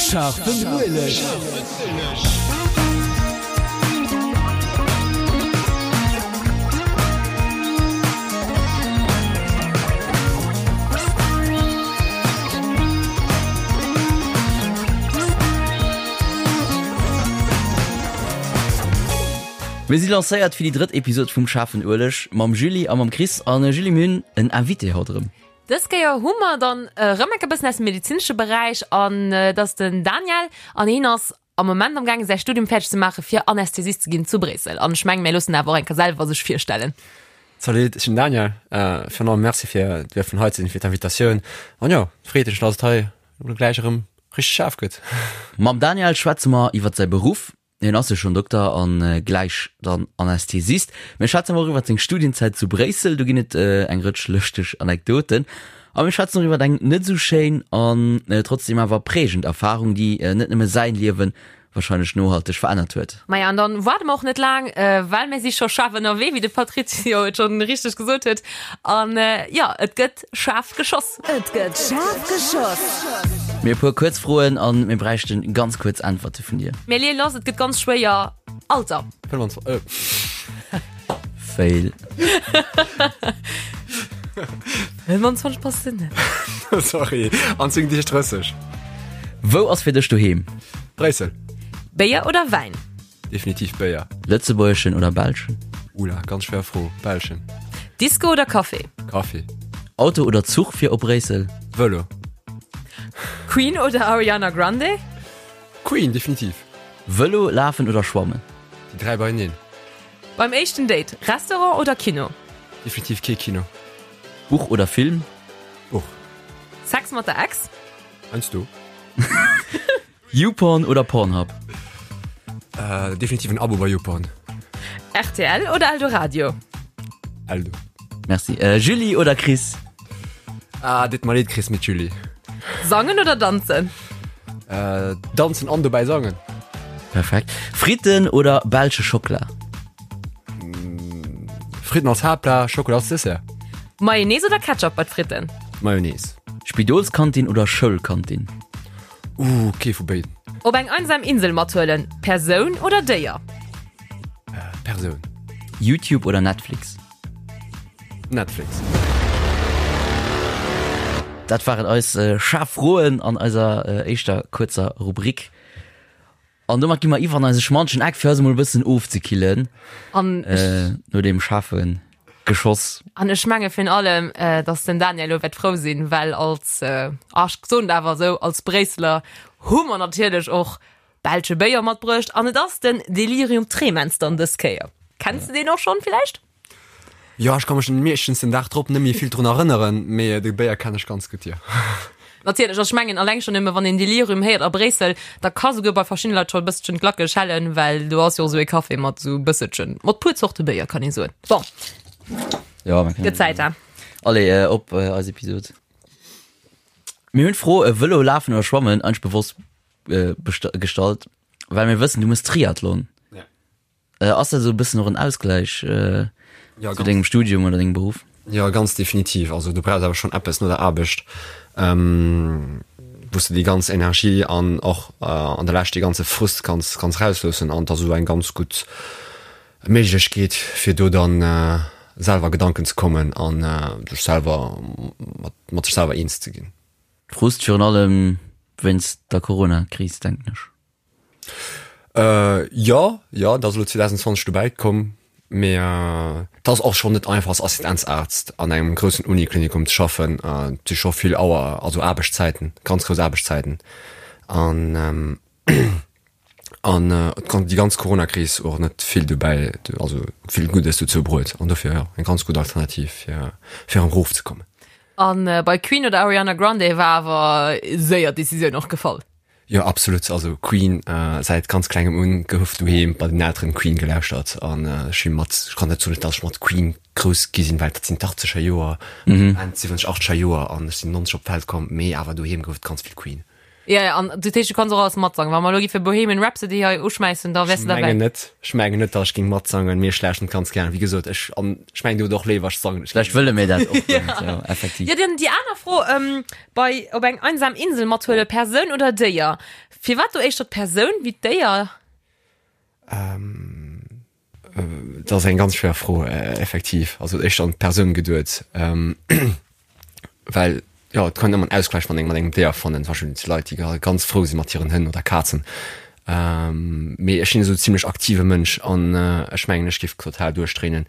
Schaarfen Ueleg! Mir si lancéiert fir déi drëtt Episod vum Schaarfen Ueleg mam Julie a mam Chris. An Julie, mir hunn en Invité haut erëm. Dës Kéier hu mer dann erëm enk e bëssen aus dem medezinesche Beräich an et ass den Daniel an hien ass am Moment am gaange säi Studium fäerdeg ze maache fir Anästhesist ze ginn zu Bréissel. An ech mengen, mir loossen awer och eng Kéier selwer sech virstellen. Salut, ech sinn den Daniel. Virun allem Merci fir duerfen hei ze sinn, fir d'Invitatioun. An jo, freet mech, dass et hei elo gläich erëm richteg schaarf gëtt. Mam Daniel schwätze mer iwwert säi Beruff, Hien ass jo schonn Dokter an gläich dann Anästhesist. Mir schwätzen awer och iwwert seng Studienzäit zu Bréissel, do ginn et eng Rëtsch lëschteg Anekdoten. A mir schwätzen och iwwert eng net esou schéin an trotzdem awer prägend Erfarung, déi net nëmme säin Liewen warscheinlech nohalteg verännert huet. Maja, an dann waarde mer och net laang, well mir si scho schaarf ënnerwee, wéi de Patrizio et schonn richteg gesot huet. An jo, et gëtt schaarf geschoss. Et gëtt schaarf geschoss! Mir e puer kuerz Froen an mir bräichten ganz kuerz Äntwerte vun dir. Mir leeë lass, et gëtt ganz schwéier. Alter. 25, äh. Fail. 25 passt de net. Sorry, an 10 Deeg 30. Wou ass fir dech doheem? Bréissel. Béier oder Wäin? Definitiv Béier. Lëtzebuergeschen oder belschen? Oula, ganz schwéier Fro. Belschen. Disco oder Café? Café. Auto oder Zuch fir op Bréissel? Vëlo. Queen oder Ariana Grande? Queen, definitiv. Vëlo, Lafen oder Schwammen? Déi 3 beieneen. Beim éischten Date, Restaurant oder Kino? Definitiv kee Kino. Buch oder Film? Buch. Sex mat der Ex? Heiansdo. YouPorn oder Pornhub? Äh, definitiv en Abo bei YouPorn. RTL oder Eldoradio? Eldo. Merci. Äh, Julie oder Chris? Ah, dit mer leed Chris, mit Julie. Sangen oder danzen? Äh, danzen an dobäi sangen. Perfekt. Fritten oder belsche Schockela? Fritten als Haaptplat, Schockela als Dessert. Mayonnaise oder Ketchup bei d'Fritten? Mayonnaise. Spidolskantin oder Schoulkantin? Ooh, kee vu béiden. Op eng einsam Insel mathuelen, Persoun oder Déier? Persoun. YouTube oder Netflix? Netflix. Dat waren eis schaarf Froen an eiser éischter kuerzer Rubrik. An domat gi mer iwwer an eise schmantschen Eck, fir eis emol e bëssen ofzekillen. An ech. No deem schaarfe Geschoss. An ech menge virun allem, dass den Daniel elo wäert frou sinn, well als, ah ech soen et awer esou, als Bréisseler hu mer natierlech och belsche Béier matbruecht. An et ass den Delirium Tremens dann dës Kéier. Kenns de deen och schonn villäicht? Jo, ech ka mech meeschtens den Dag drop net méi vill drun erënneren, mee de Béier kennen ech ganz gutt, jo. Natierlech, also ech mengen alleng schonn nëmme wann een Delirium héiert a Bréissel, da ka souguer bei verschiddene Leit scho e bësselchen d'Glacke schellen, well do ass jo och esou e Café mat esou e bësselchen, mat puer Zorte Béier kann ee soen. Bon, Jo, man kann. gëtt Zäit, he? Allez, op eis Episod. Mir hunn d'Fro Vëlo, Lafen oder Schwammen eigentlech bewosst gestallt, well mir wëssen, du mëss Triathlon. Äh, ass dat esou e bëssen och en Ausgläich äh, Ja, zu ganz. dengem Studium oder dengem Beruff? Ja, ganz definitiv. Also du brauchs awer schonn eppes no der Aarbecht, ähm, wou s de déi ganz Energie an och äh, an der Lescht dee ganze Frust kanns, kanns rausloossen. An et ass esou eng ganz gutt Méiglechkeet, fir do dann äh, selwer Gedanken ze kommen an äh, sech selwer mat, mat sech selwer eens ze ginn. Frust virun allem wéinst der Corona-Kris, denken ech. Äh, jo, jo, dat ass elo 2020 dobäi komm, mee et ass och schonn net einfach als Assistenzarzt an engem groussen Uniklinikum ze schaffen. Et si scho vill Auer, also Aarbechtszäiten, ganz grouss Aarbechtszäiten an an déi ganz Coronakris och net vill dobäi, also vill Guddes dozou bruet an dofir jo eng ganz gutt Alternativ fir fir erëm erofzekommen. An bei Queen oder Ariana Grande war awer séier d'Decisioun och gefall? Jo absolut, also Queen säit ganz klengem un gouf doheem bei den Elteren Queen gelauschtert an ech si mat, ech kann net soen dass ech mat Queen grouss gi sinn, well dat sinn d'Achtzeger Joer, Enn 70, Achtzeger Joer an ech sinn 90 op d'Welt komm, mee awer doheem gouf et ganz vill Queen. Ja, ja, an du heescht, du kanns och alles matsangen. Wa mer elo giffe Bohemian Rhapsody hei uschmäissen, da wäers du Ech derbäi. mengen net, ech mengen net, datt ech géing matsangen, mee ech lauschteren et ganz gären. Wéi gesot, ech, an ech mengen, dir hutt och léiwer, ech sangen. Vläicht wëlle mir dat och guer net, jo, effektiv. Ja, dann déi aner Fro, ähm, bei op eng einsam Insel mathuele, Persoun oder Déier? Firwat do éischter d'Persoun wéi d'Déier? Dat ass eng ganz schwéier Fro, effektiv. Also éischter an d'Persoun geduet, well jo et kann een ëmmer en Ausgleich mat engem mat engem Déier fannen. Zum Beispill zu Leit, déi ganz frou si mat hiren Hënn oder Kazen. Mee ech sinn esou zimlech aktive Mënsch an ech mengen ech géif total duerchdréinen,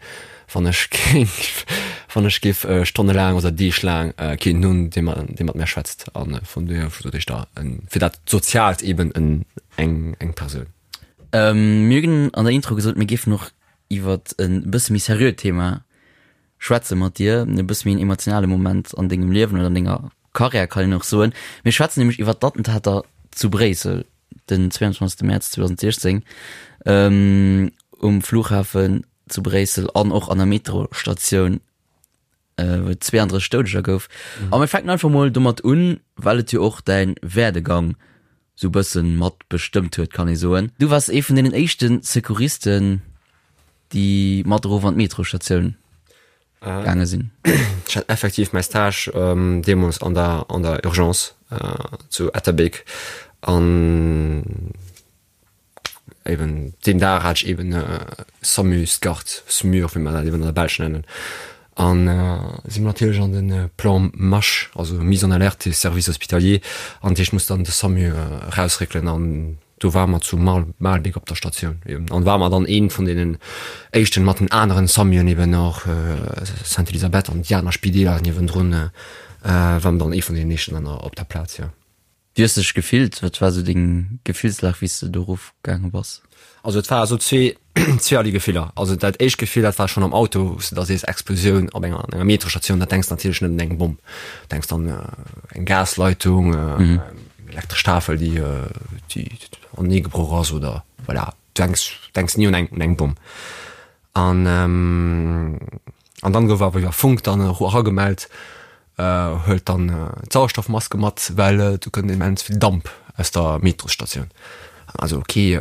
wann ech géif wann ech géif stonnelaang oder deeglaang keen hunn, dee mat dee mat mär schwätzt. A vun dohier sot ech da fir dat Soziaalt eben en eng eng Persoun. Mir hunn an der Intro gesot, mir géifen och iwwert e bësse méi seriöt Thema schwätze mat dir, e bësse méi en emotionale Moment an dengem Liewen oder an denger Karriär, kann een och soen. Mir schwätzen nämlech iwwert d'Attentater zu Bréissel den 22. Mäerz 2016 um Flughafen zu Bréissel an och an der Metrostatioun wou et 32 Doudeger gouf. A mir fänken einfach mol domat un, well et jo och däin Werdegang sou bëssen mat bestëmmt huet, kann ee soen. Du waars ee vun deenen éischte Secouristen, déi mat erof an d'Metrostatioun gaange sinn. Ech hat effektiv mäi Stage deemools an der an der Urgence zu Etterbeek an Eben deen Dag hat ech eben SAMU, SCART, SMUR, wéi mer dat eben an der Belsch nennen. An si mer natierlech an de Plan MASH, also Mise en alerte des services hospitaliers, an dat heescht, muss dann de SAMU erausréckelen an do ware mer zu Maelbeek op der Statioun eben an ware mer dann ee vun deenen éischten mat den aneren SAMUen eben och Sainte-Elisabeth an déi aner Spideeler niewendrun, ware mer dann ee vun deenen éischten dann op der Plaz, jo. Wéi hues de dech gefillt? Wat war sou deng Gefillslag wéi s de do erof gaange bass? Also et war esou zwee, zweeërlee Gefiller. Also dat éischt Gefill, dat war schonn am Auto, wou s de da sees, Explosioun op enger, an enger Metrostatioun, dat denks de natierlech net un eng Bomm. Denks dann eng Gasleitung, eng elektresch Tafel, déi, déi anenee gebroch ass oder voilà, du denks, denks ni un eng, un eng Bomm. An, an dann gouf awer iwwer Funk dann eragemellt, huelt dann d'Sauerstoffmaske mat, well do kënnt immens vill Damp aus der Metrosstatioun. Also ok,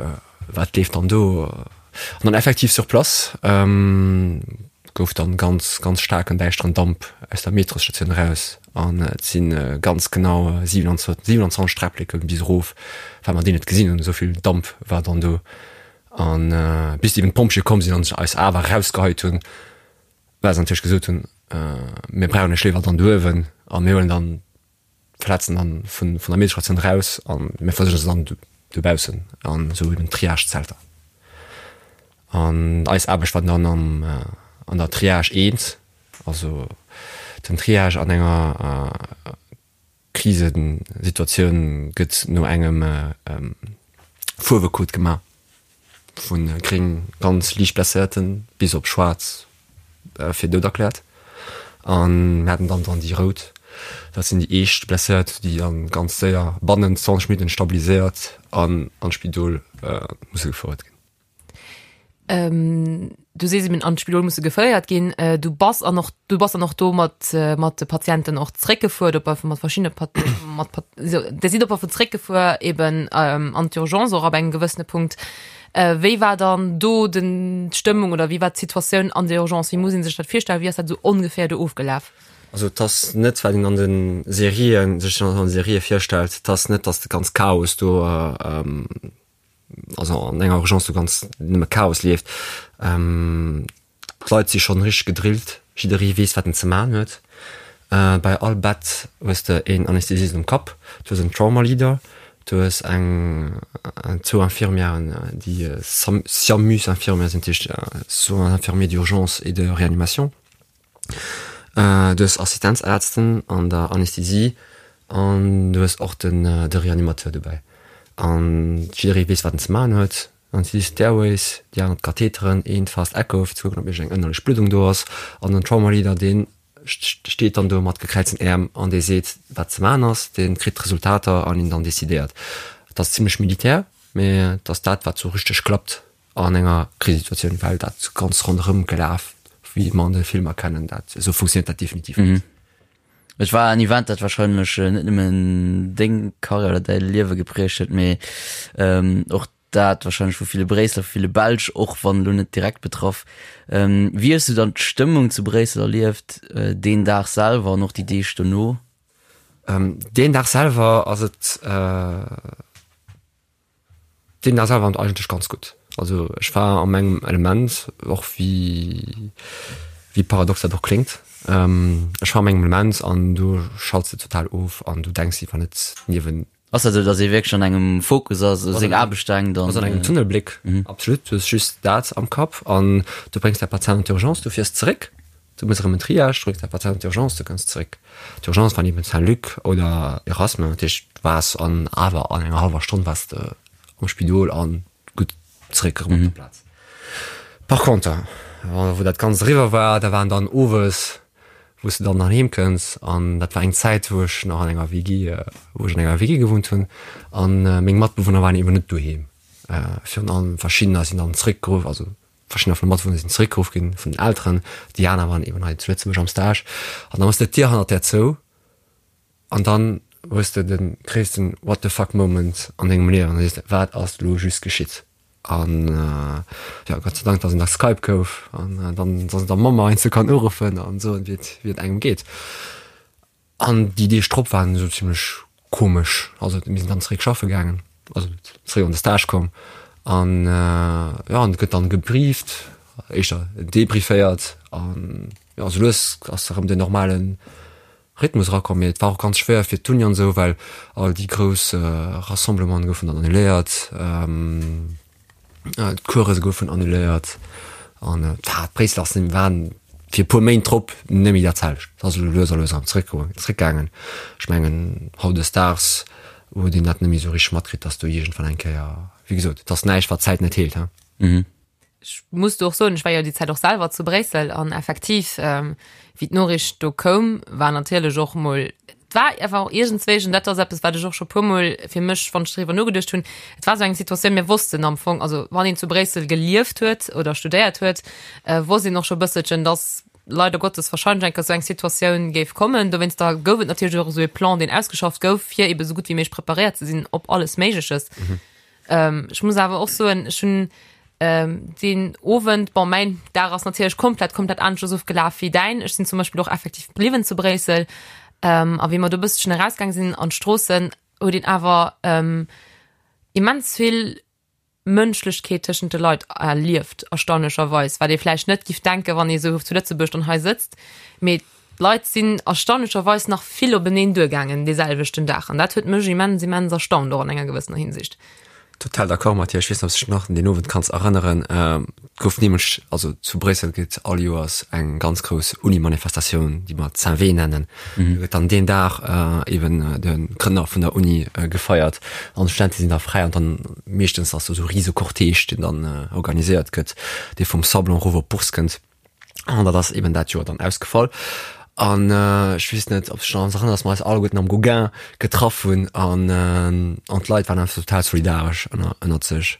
wat leeft dann do? An dann effektiv sur place gouf dann ganz, ganz staarken däischteren Damp aus der Metrosstatioun eraus an et si ganz genau 27 Träppleke bis erof, well mer déi net gesinn hunn, esou vill Damp war dann do. An bis eben d'Pompjeeë komm sinn an eis awer erausgeheit hunn, well se natierlech gesot hunn, mir brauchen iech léiwer dann do uewen a mir huelen dann d'Verletzten dann vun der Medestatioun eraus a mir versuerge se dann dobaussen an esou eben Triage-Zelter. An eis Aarbecht war dann am an der Triage 1, also den Triage an enger Krisesituatioun gëtt no engem Fuerwecode gemaach, vu gréng, ganz liicht Blesséierten, bis op schwaarz fir dout erkläert. A mir haten dann dann déi rout, dat sinn déi eescht Blesséiert, déi dann ganz séier bannent 20 Minutten stabiliséiert an an d'Spidol musse gefouert ginn. Ähm, du sees eben an d'Spidol musse geféiert ginn. Äh, du bass an och du bass an och do mat äh, mat de Patienten och zréckgefuer, op mat verschiedene Pat mat Pat so, der sidd op vu zréckgefuer eben ähm, an d'Urgence och ab engem gewëssene Punkt. Äh, wéi war dann do den d'Stëmmung oder wéi war d'Situatioun an der Urgence? Wéi muss een sech dat virstellen? Wéi ass dat sou ongeféier do ofgelaf? Also et ass net wat een an de Serien sech an de Serië virstellt, et ass net, datt de ganz Chaos do ähm, also an enger Urgence do ganz nëmme Chaos leeft. Ähm, d'Leit si schonn richteg gedrillt, jidderee weess wat en ze man huet. Äh, bei all Bett hues de een Anästhesist um Kapp, du hues en Trauma Leader, du hues eng zwou Infirmièren déi SIAMUS-Infirmière sinn, dat heescht Soins infirmiers d'urgence et de réanimation. Du hues Assistenzärzten an der Anästhesie an du hues och den de Reanimateur dobäi. An jidderee weess, wat en ze maachen huet. An si d'Airways, déi aner d'Katheteren, een d'Fast Echo fir ze kucken, ob iergend eng ënnerlech Bluddung do ass. An den Trauma Leader, dee steet dann do mat gekräizten Äerm an dee seet, wat ze maachen ass. Dee kritt d'Resultater an een dann decidéiert. Et ass zimmlech militär, mee et ass dat, wat sou richteg klappt. An enger Krisesituatioun, well dat ganz ronderëm gelaf, wéi mer an de Filmer kennen, dat esou funktioniert dat definitiv net. Et war en Event, dat wahrscheinlech net nëmmen deng Karriär oder däi Liewe geprägt huet, mee och dat wahrscheinlech vu ville Bréisseler, vu ville Belsch, och wann elo net direkt betraff. Wéi hues du dann d'Stëmmung zu Bréissel erlieft, deen Dag selwer an och déi Deeg dono? Deen Dag selwer ass et. Deen ass awer eigentlech ganz gutt. Also ech war a mengem Element, och wéi wéi paradox dat och kléngt. Ech war a mengem Element an do schalts de total of an du denks iwwer net niewen. Ass dat esou, datt ee wierklech an engem Fokus ass, u seng Aarbecht denkt an. Ass an engem Tunnelbléck, absolut. Du hues just dat am Kapp an du bréngs däi Patient an d'Urgence, du fiers zeréck, du méchs erëm en Triage, du bréngs däi Patient an d'Urgence, du kënns zeréck. D'Urgence war niewent Saint-Luc oder Erasme, dat heescht du waars an awer an enger hallwer Stonn waars de am Spidol an gutt zeréck erëm op der Plaz. Par conter, wou dat Ganzt eriwwer war, da waren dann owes, wou s de dann heem kënns an dat war eng Zäit, wou ech nach an enger WG, wou ech an enger WG gewunnt hunn an meng Matbewunner waren eben net doheem. Virun allem verschiddener sinn dann zeréckgeruff, also Verschiddener vun de Matbewunner sinn zeréckgeruff ginn vun den Elteren, déi aner waren eben hei zu Lëtzebuerg am Stage. An da méchs de d'Dier hannert där zou an dann hues de de gréissten What the fuck Moment an dengem Liewen an da sees de, wat ass elo just geschitt? An jo, Gott sei Dank, dass en da Skype gouf an dann, dass een der Mamm heiansdo kann uruffen an soen, wéi et, wéi et engem geet. An déi Deeg drop waren esou zimlech komesch. Also mir sinn dann zeréck schaffe gaangen, also zeréck an de Stage komm an jo, an et gëtt dann gebrieft, éischter debrieféiert an jo, esou lues ass erëm den normale Rhythmus erakomm. Mee et war och ganz schwéier fir d'Uni an esou, well all déi grouss Rassemblementen goufen dann annuléiert. D'Course goufen annuléiert an d'Bréisseler sinn waren fir e puer Méint drop net méi dat selwecht. Et ass elo lues a lues erëm zeréckgoen, zeréckgaangen. Ech mengen hautdesdaags huet een dat net méi esou richteg matkritt, datt do iergendwann eng Kéier, wéi gesot, et ass näischt wat d'Zäit net heelt, he. Ech muss do och soen, ech war jo déi Zäit och selwer zu Bréissel an effektiv, wéi d'Noriicht do koum, war natierlech och mol, et war einfach och iergendswéi, an dat ass eppes, wat ech och scho puermol fir mech, wann ech driwwer nogeduecht hunn, et war esou eng Situatioun, mir wossten am Fong, also wann een zu Bréissel gelieft huet oder studéiert huet, wosst een och scho e bësselchen, dass leider Gottes wahrscheinlech eng Kéier esou eng Situatioun géif kommen. Dowéinster gouf et natierlech och esou e Plan, deen ausgeschafft gouf, fir ebe sou gutt wéi méiglech preparéiert ze sinn op alles Méigleches. Ech muss awer och soen, ech hunn deen Owend, bon, mäin Dag ass natierlech komplett, komplett aneschters ofgelaf wéi däin. Ech sinn zum Beispill och effektiv bliwwen zu Bréissel. A wéi mer do e bësselchen erausgaang sinn an d'Stroossen, huet een awer immens vill Mënschlechkeet tëschent de Leit erlieft, erstaunlecherweis, wat ee vläicht net giff denken, wann ee sou zu Lëtzebuerg dann hei sëtzt. Mee d'Leit sinn erstaunlecherweis nach vill openeen duergaangen dee selwechten Dag an dat huet mech immens, immens erstaunt, och an enger gewëssener Hinsicht. Total d'accord mat dir. Ech weess net, ob s de dech nach un deen Owend kanns erënneren. Et gouf nämlech, also zu Bréissel gëtt all Joers eng ganz grouss Uni-Manifestatioun, déi mer Saint-Vé nennen. Do gëtt dann deen Dag eben de Grënner vun der Uni gefeiert an d'Studente sinn da fräi an dann meeschtens ass do esou e rise Cortège, deen dann organiséiert gëtt, dee vum Sablon erof op d'Bourse kënnt. An dat ass eben dat Joer dann ausgefall. An ech weess net, ob s de dech nach erënners, dass mer eis alleguerten am Gauguin getraff hunn an an d'Leit waren einfach total solidaresch ënner ënnert sech.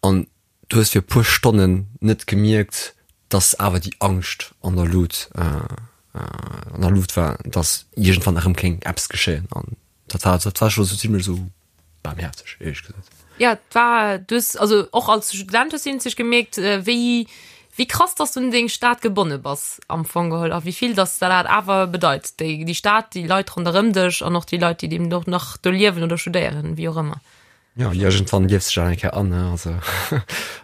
An du hues fir e puer Stonnen net gemierkt, dass awer déi Angscht an der Lut an der Luucht war, dass iergendwann erëm kéint eppes geschéien. An dat war dat war scho sou zimlech esou Barmherzeg, éierlech gesot. Ja, et war, du hues, also och als Student hues du iergendwéi gemierkt, wéi, wéi krass dass du un deng Stad gebonne bass am Fong geholl a wéi vill dass der dat awer bedeit, déi, déi Stad, déi Leit ronderëm dech an och déi Leit, déi eben och nach do liewen oder studéieren, wéi och ëmmer. Jo, iergendwann liefs de dech awer eng Kéier an, ne, also.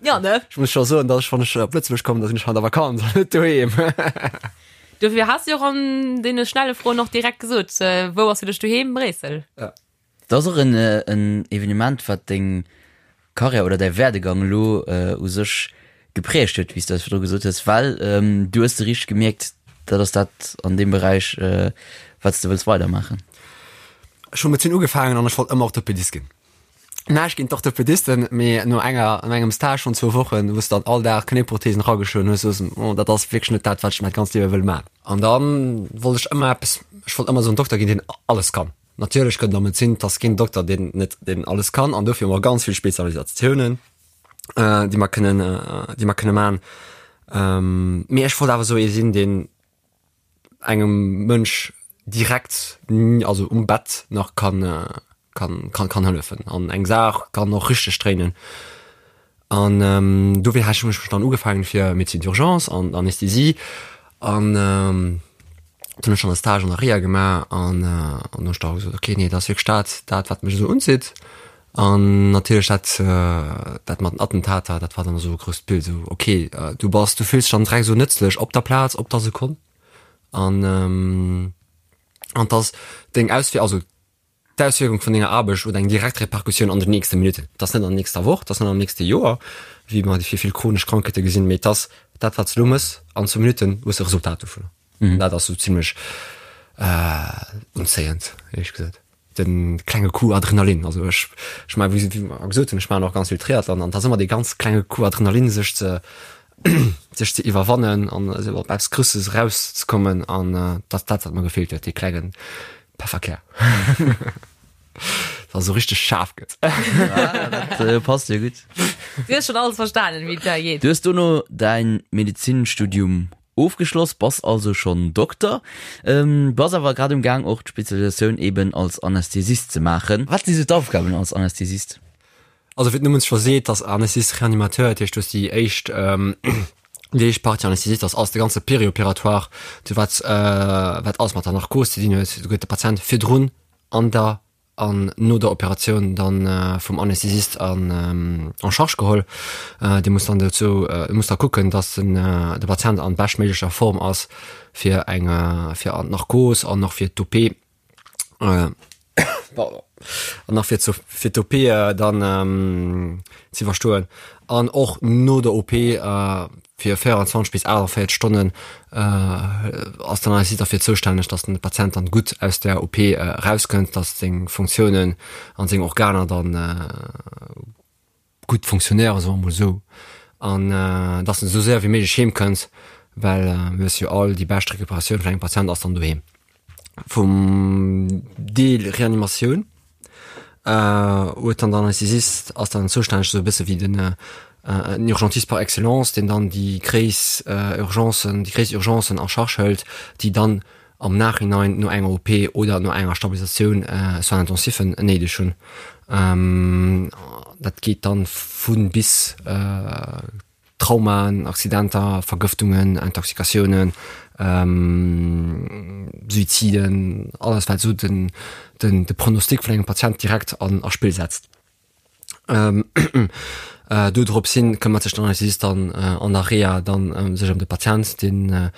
Ja, ne? Ech muss scho soen, dass ech, wann ech op Lëtzebuerg kommen, da sinn ech an der Vakanz an net doheem. Dofir has de jo och an deene schnelle Froen och direkt gesot, wou ass fir dech doheem? Bréissel. Ja. Dat ass och en Evenement, wat deng Karriär oder däi Werdegang elo u sech geprägt huet, wéi s du eis virdru gesot hues, well du hues de richteg gemierkt, dat ass dat an deem Beräich, wat s de wëlls weidermaachen. Ech hu Medezin ugefaangen an ech wollt ëmmer Orthopedist ginn. Näischt géint d'Orthopedisten, mee no enger, no engem Stage vun zwou Wochen, wou s de dann all Dag Knéiprothesen erageschloen hues, sous en, oh, dat ass wierklech net dat, wat ech mäi ganzt Liewe wëll maachen. An da wollt ech ëmmer eppes, ech wollt ëmmer esou en Dokter ginn, deen alles kann. Natierlech gëtt et am Medezin, 't ass keen Dokter, deen net, deen alles kann an dofir hu mer ganz vill Spezialisatiounen, déi mer kënnen, déi mer kënne man. Mee ech wollt awer esou ee sinn, deen engem Mënsch. direkt, also um Bett nach kann kann kann kann hëllefen an eng Saach kann och richteg dréinen. An dofir hat ech mech dann ugefaangen fir Médecine d'urgence an Anästhesie an dann hunn ech schon e Stage an der Reha gemaach an an hunn ech da gesot, okay nee dat ass wierklech dat dat wat mech esou unzitt. An natierlech dat dat mat den Attentater, dat war dann esou e grousst Bild esou okay du bass du fills dech dann direkt esou nëtzlech op der Plaz op der Sekonn an an dass deng Auswier also D'Auswierkung vun denger Aarbecht huet eng direkt Repercussioun an den nächste Minutten. Et ass net an der nächster Woch, et ass net am nächste Joer, wéi mer fir vill chronesch Krankheete gesinn, mee et ass dat, wat s de elo méchs, an zwou Minutten hues de e Resultat dovunner. An dat ass esou zimlech unzéiend, éierlech gesot. De klenge Coup Adrenalin, also ech, ech maachen, wéi mer gesot hunn, ech maachen och ganz vill Triathlon an et ass ëmmer dee ganz klenge Coup Adrenalin, sech ze, sech ze iwwerwannen an esou op eppes Grousses erauszekommen an dat ass dat, wat mer gefeelt huet, dee klengen Pefferkär. Dass esou richteg schaarf gëtt. Dat passt jo gutt. Du hues schon alles verstanen, wéi et da geet. Du hues dono däin Medezinstudium ofgeschloss, bass also schonn Dokter, bass awer grad um Gaang och d'Spezialisatioun eben als Anästhesist ze maachen. Wat si sou d'Aufgaben als Anästhesist? Also wéi den Numm et scho seet, ass Anesthésist Réanimateur, dat heescht du hues déi éischt déi éischt Partie Anesthésist ass alles de ganze Périopératoire, du wat wat alles mat der Narkos ze dinn huet. Do gëtt de Patient virdrun, an der an no der Operatioun dann vum Anesthésist an en charge geholl. Dee muss dann dozou muss da kucken, datt den de Patient an beschtméiglecher Form ass fir eng fir an d'Narkos an och fir d'OP. Pardon. An nach fir zu fir d'OP dann ze iwwerstoen an och no der OP fir 24 bis 48 Stonnen ass dann eis derfir zoustänneg, datt den Patient dann gutt aus der OP erauskënnt, datt seng Funktiounen an seng Organer dann gutt funktionéieren, soe mer emol esou, an dass en esou séier wéi méiglech heem kënnt, well mir wësse jo all, déi bescht Recuperatioun vun engem Patient ass dann doheem. Vum Deel Reanimatioun huet dann den Anästhesist ass dann zoustänneg, esou e bësse wéi den en Urgentiste par excellence, deen dann déi gréiss Urgencen, déi gréiss Urgencen en charge hëlt, déi dann am Nachhinein no enger OP oder no enger Stabilisatioun Soins intensifen néideg hunn. Dat geet dann vu bis Traumaen, Accidenter, Vergëftungen, Intoxikatiounen, Suiziden, alles wat esou den de Pronostic vun engem Patient direkt an a Spill setzt. Do drops hin këmmert sech den Anästhesist dann an der Reha dann sech ëm de Patient, deen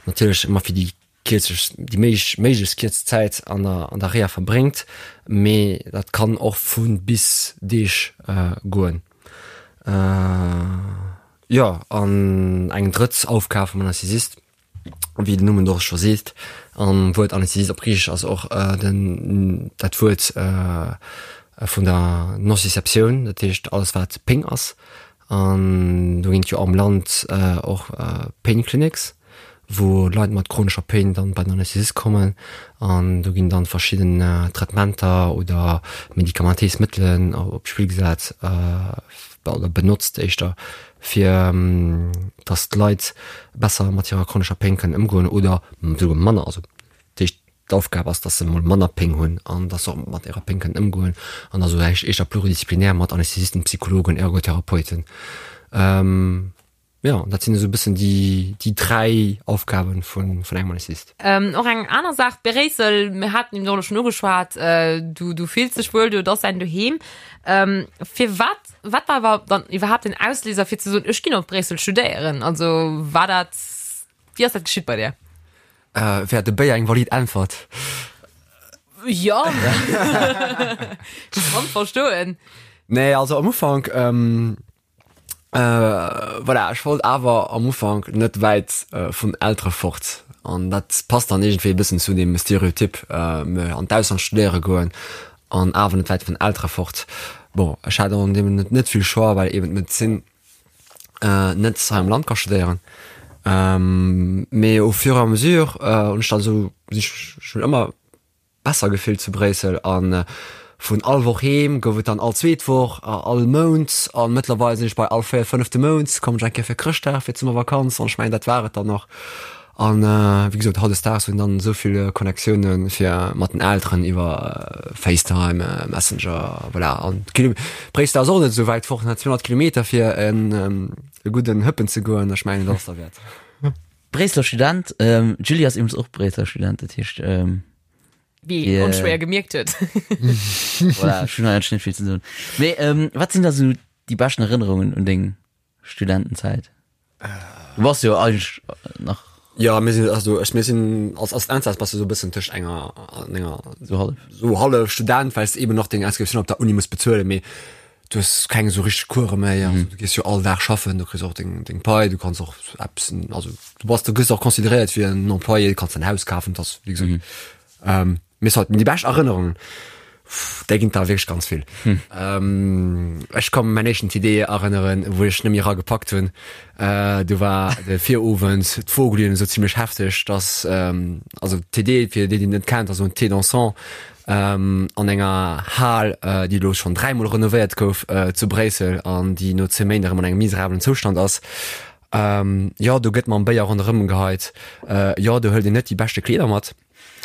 natierlech ëmmer fir déi kierzeg, déi méiglech méiglechst kierz Zäit an der an der Reha verbréngt, mee dat kann och vu bis Deeg goen. Jo, an eng drëtt Aufgab vum Anästhesist wéi den Numm et och scho seet, an Wuert Anästhesist op Griichesch ass och den dat Wuert vun der Nociceptioun, dat heescht alles wat Péng ass. An do ginn et jo am Land och Pain Clinics, wou Leit mat chronescher Péng dann bei den Anästhesist kommen an do ginn dann verschidden Traitementer oder medikamentéis Mëttelen op d'Spill gesat oder benotzt éischter fir dass d'Leit besser mat hirer chronescher Péng kënnen ëmgoen oder souguer manner, also dat heescht d'Aufgab ass, dass se mol manner Péng hunn an dass se och mat hirer Péng kënnen ëmgoen an da sou éischter pluridisziplinär mat Anästhesisten, Psychologen, Ergotherapeuten. Jo, dat sinn esou e bëssen déi, déi 3 Aufgaben vun, vun engem Anästhesist. Och eng aner Saach, Bréissel, mir haten eben och elo schonn ugeschwat, du, du fills dech wuel do, et ass däin Doheem. Firwat, wat war awer dann iwwerhaapt den Ausléiser fir ze soen, ech ginn op Bréissel studéieren? Also war dat, wéi ass dat geschitt bei dir? Wär de Béier eng valid Äntwert? Jo, ech kann verstoen. Nee, also am Ufank, Voilà, ech wollt awer am Ufank net wäit vun Eltere fort an dat passt dann iergendwéi e bëssen zu deem Stereotyp, an d'Ausland studéiere goen an awer net wäit vun Eltere fort. Bon, ech hat an deem Moment net vill Choix, well eben d'Medezin net hei am Land ka studéieren. Mee au fur et à mesure hunn ech dann esou, sinn ech schonn ëmmer besser gefillt zu Bréissel an vun all Woch heem gouf et dann all zweet Woch, all Mount an mëttlerweil sinn ech bei all véiert, fënnefte Mount kommen ech eng Kéier fir Chrëschtdag, fir d'Summervakanz an ech mengen dat war et dann och. An wéi gesot, hautdesdaags hunn dann esou vill Connectiounen fir mat den Elteren iwwer FaceTime, Messenger, voilà. An Bréissel ass och net esou wäit fort, 200 Kilometer fir en gudden Hëppen ze goen, ech mengen dat ass derwäert. Bréisseler Student, d'Julie ass iwwregens och Bréisseler Student, dat heescht. Wéi een onschwéier gemierkt huet. Voilà, ech hunn eigentlech net vill ze soen. Mee wat sinn da sou déi beschten Erënnerungen un deng Studentenzäit? Du bass jo eigentlech nach. Jo, mir sinn, also ech, mir sinn als Assistenzarzt bass du sou e bëssen tëscht enger an enger Sou hallef. sou hallef Student, well s de eben nach deng Inscriptioun op der Uni muss bezuelen, mee du hues keng esou richteg Course méi, also du gees jo all Dag schaffen, du kriss och deng deng Pai, du kanns och eppes, also du bass, du gëss och consideréiert wéi en Employé, du kanns däin Haus kafen, dat ass wéi gesot. Mee soit, déi bescht Erënnerungen, där ginn der wierklech ganz vill. Ech ka mäin éischten TD erënneren, wou ech net méi eragepackt hunn. Do war de Virowend d'Vogeln esou zimlech hefteg, dass, also TD, fir déi, déi et net kennt, ass esou en Thé dansant an enger Hal, déi elo schonn dräimol renovéiert gouf zu Bréissel an déi no 10 Méint erëm an engem miserabelen Zoustand ass. Jo, do gëtt mam Béier ronderëm geheit. Jo, do hëlt een net déi beschte Kleeder mat.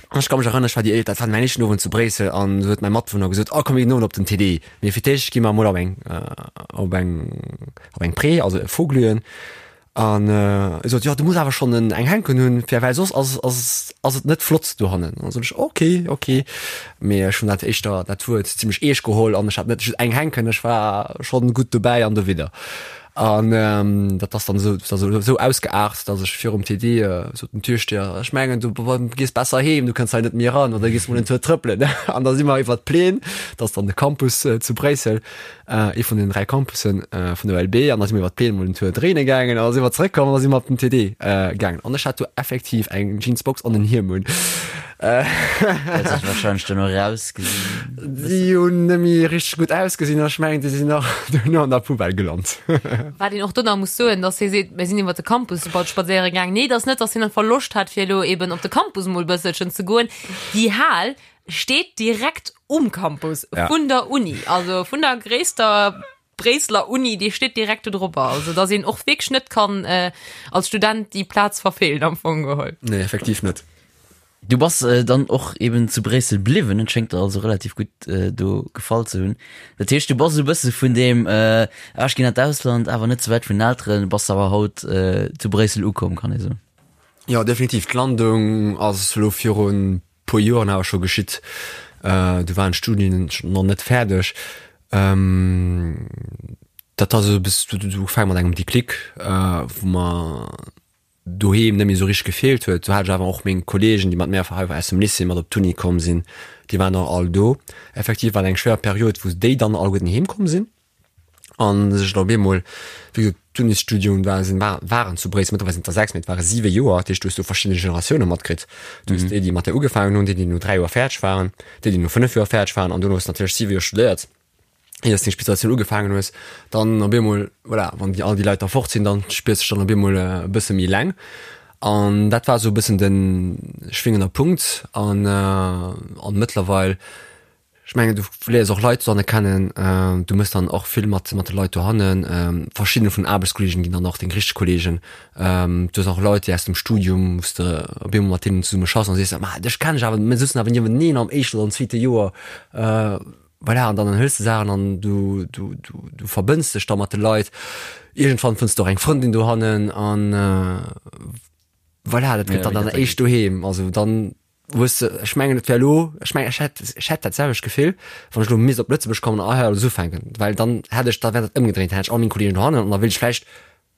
An ech ka mech erënneren, ech war déi éischt, dat war mäin éischten Owend zu Bréissel an du huet mäi Matwunner gesot, oh komm mir ginn den Owend op den TD. Mee fir d'éischt gi mer emol op eng, op eng, op eng Pré, also e Voglühen. An e sot, jo du muss awer schonn en eng Hänken hunn, fir well soss ass, ass, ass et net flott dohannen. An da sot ech, ok, ok. Mee ech hunn dat éischter, dat Wuert zimmlech eescht geholl an ech hat net just eng Hänken, ech war schonn gutt dobäi an dowidder. An dat ass dann esou, esou, esou ausgeaart, datt ech virum TD sot den Türsteher, ech mengen du gees besser heem, du kënns hei net méi eran oder gees mol en Tour trëppelen. An da si mer iwwer d'Plaine, dat ass dann de Campus zu Bréissel, ee vun den 3 Campussen vun der ULB, an da si mer iwwer d'Plaine mol en Tour dréine gaangen an da si mer zeréckkomm an da si mer op den TD gaangen. An ech hat do effektiv eng Jeansbox an en Hiem un. Huet sech wahrscheinlech duerno erausgesinn. Déi hunn net méi richteg gutt ausgesinn an ech mengen, déi sinn och duerno an der Poubelle gelant. Wat een och do nach muss soen, dass hie seet, mir sinn iwwer de Campus bal spadséiere gaangen. Nee, et ass net, dass hien einfach Loscht hat, fir elo eben op de Campus emol e bësselchen ze goen. Déi Hal steet direkt um Campus vun der Uni, also vun der gréisster Bréisseler Uni, déi steet direkt do drop. Also dass een och wierklech net kann als Student déi Plaz verfeelen am Fong geholl. Nee, effektiv net. Du bass dann och eben zu Bréissel bliwwen, et schéngt der also relativ gutt do gefall ze hunn. Dat heescht, du bass esou e bësse vun deem ah ech ginn an d'Ausland, awer net ze wäit vun den Elteren, bass awer haut zu Bréissel ukomm, kann ee soen. Jo, definitiv. D'Landung ass elo virun puer Joren awer scho geschitt. Du waren d'Studien nach net fäerdeg. Dat ass esou e bësse, du du ugefaange mat engem Déclic, wou mer doheem net méi esou richteg gefeelt huet. Do hat ech awer och meng Kollegen, déi mat mär hei aus dem Lycée mat op d'Uni komm sinn, déi waren och all do. Effektiv war et eng schwéier Period, wou déi dann alleguerten heem komm sinn an sech dann op eemol, wéi gesot, d'Unisstudium war, sinn, war, waren zu Bréissel, mëttlerweil sinn et der 6, mee et ware 7 Joer, dat heescht, du hues do verschidde Generatioune matkritt. Du hues déi, déi mat där ugefaangen hunn, déi, déi no 3 Joer fäerdeg waren, déi, déi no 5 Joer fäerdeg waren an duerno hues de natierlech 7 Joer studéiert. Ier s deng Spezialisatioun ugefaangen hues, dann op eemol, voilà, wann déi all déi Leit da fort sinn, dann spiers dech dann op eemol e bësse méi eleng. An dat war esou e bëssen de schwingender Punkt. An an mëttlerweil, ech mengen, du léiers och Leit dohanne kennen, du méchs dann och vill mat mat de Leit dohannen. Verschidden vun den Aarbechtskolleegen ginn dann och deng richteg Kolleegen. Du hues och Leit, déi aus dem Studium, wou s de op eemol mat deenen zesumme schaffs an sees, ma dech kennen ech awer, mir souzen awer nieweneen am éischten oder am zweete Joer. Voilà, an dann hëls de Saachen an du, du, du, du verbënns dech da mat de Leit. Iergendwann fënns du och eng Frëndin dohannen an voilà, dat gëtt dann dann éischt doheem. Also dann hues de, ech mengen et wär elo, ech mengen ech hätt, ech hätt dat selwecht Gefill, wann ech elo misst op Lëtzebuerg kommen an hei alles ufänken, well dann hätt ech, da wär dat ëmgedréint, dann hätt ech all meng Kolleegen dohannen an da wéilt ech vläicht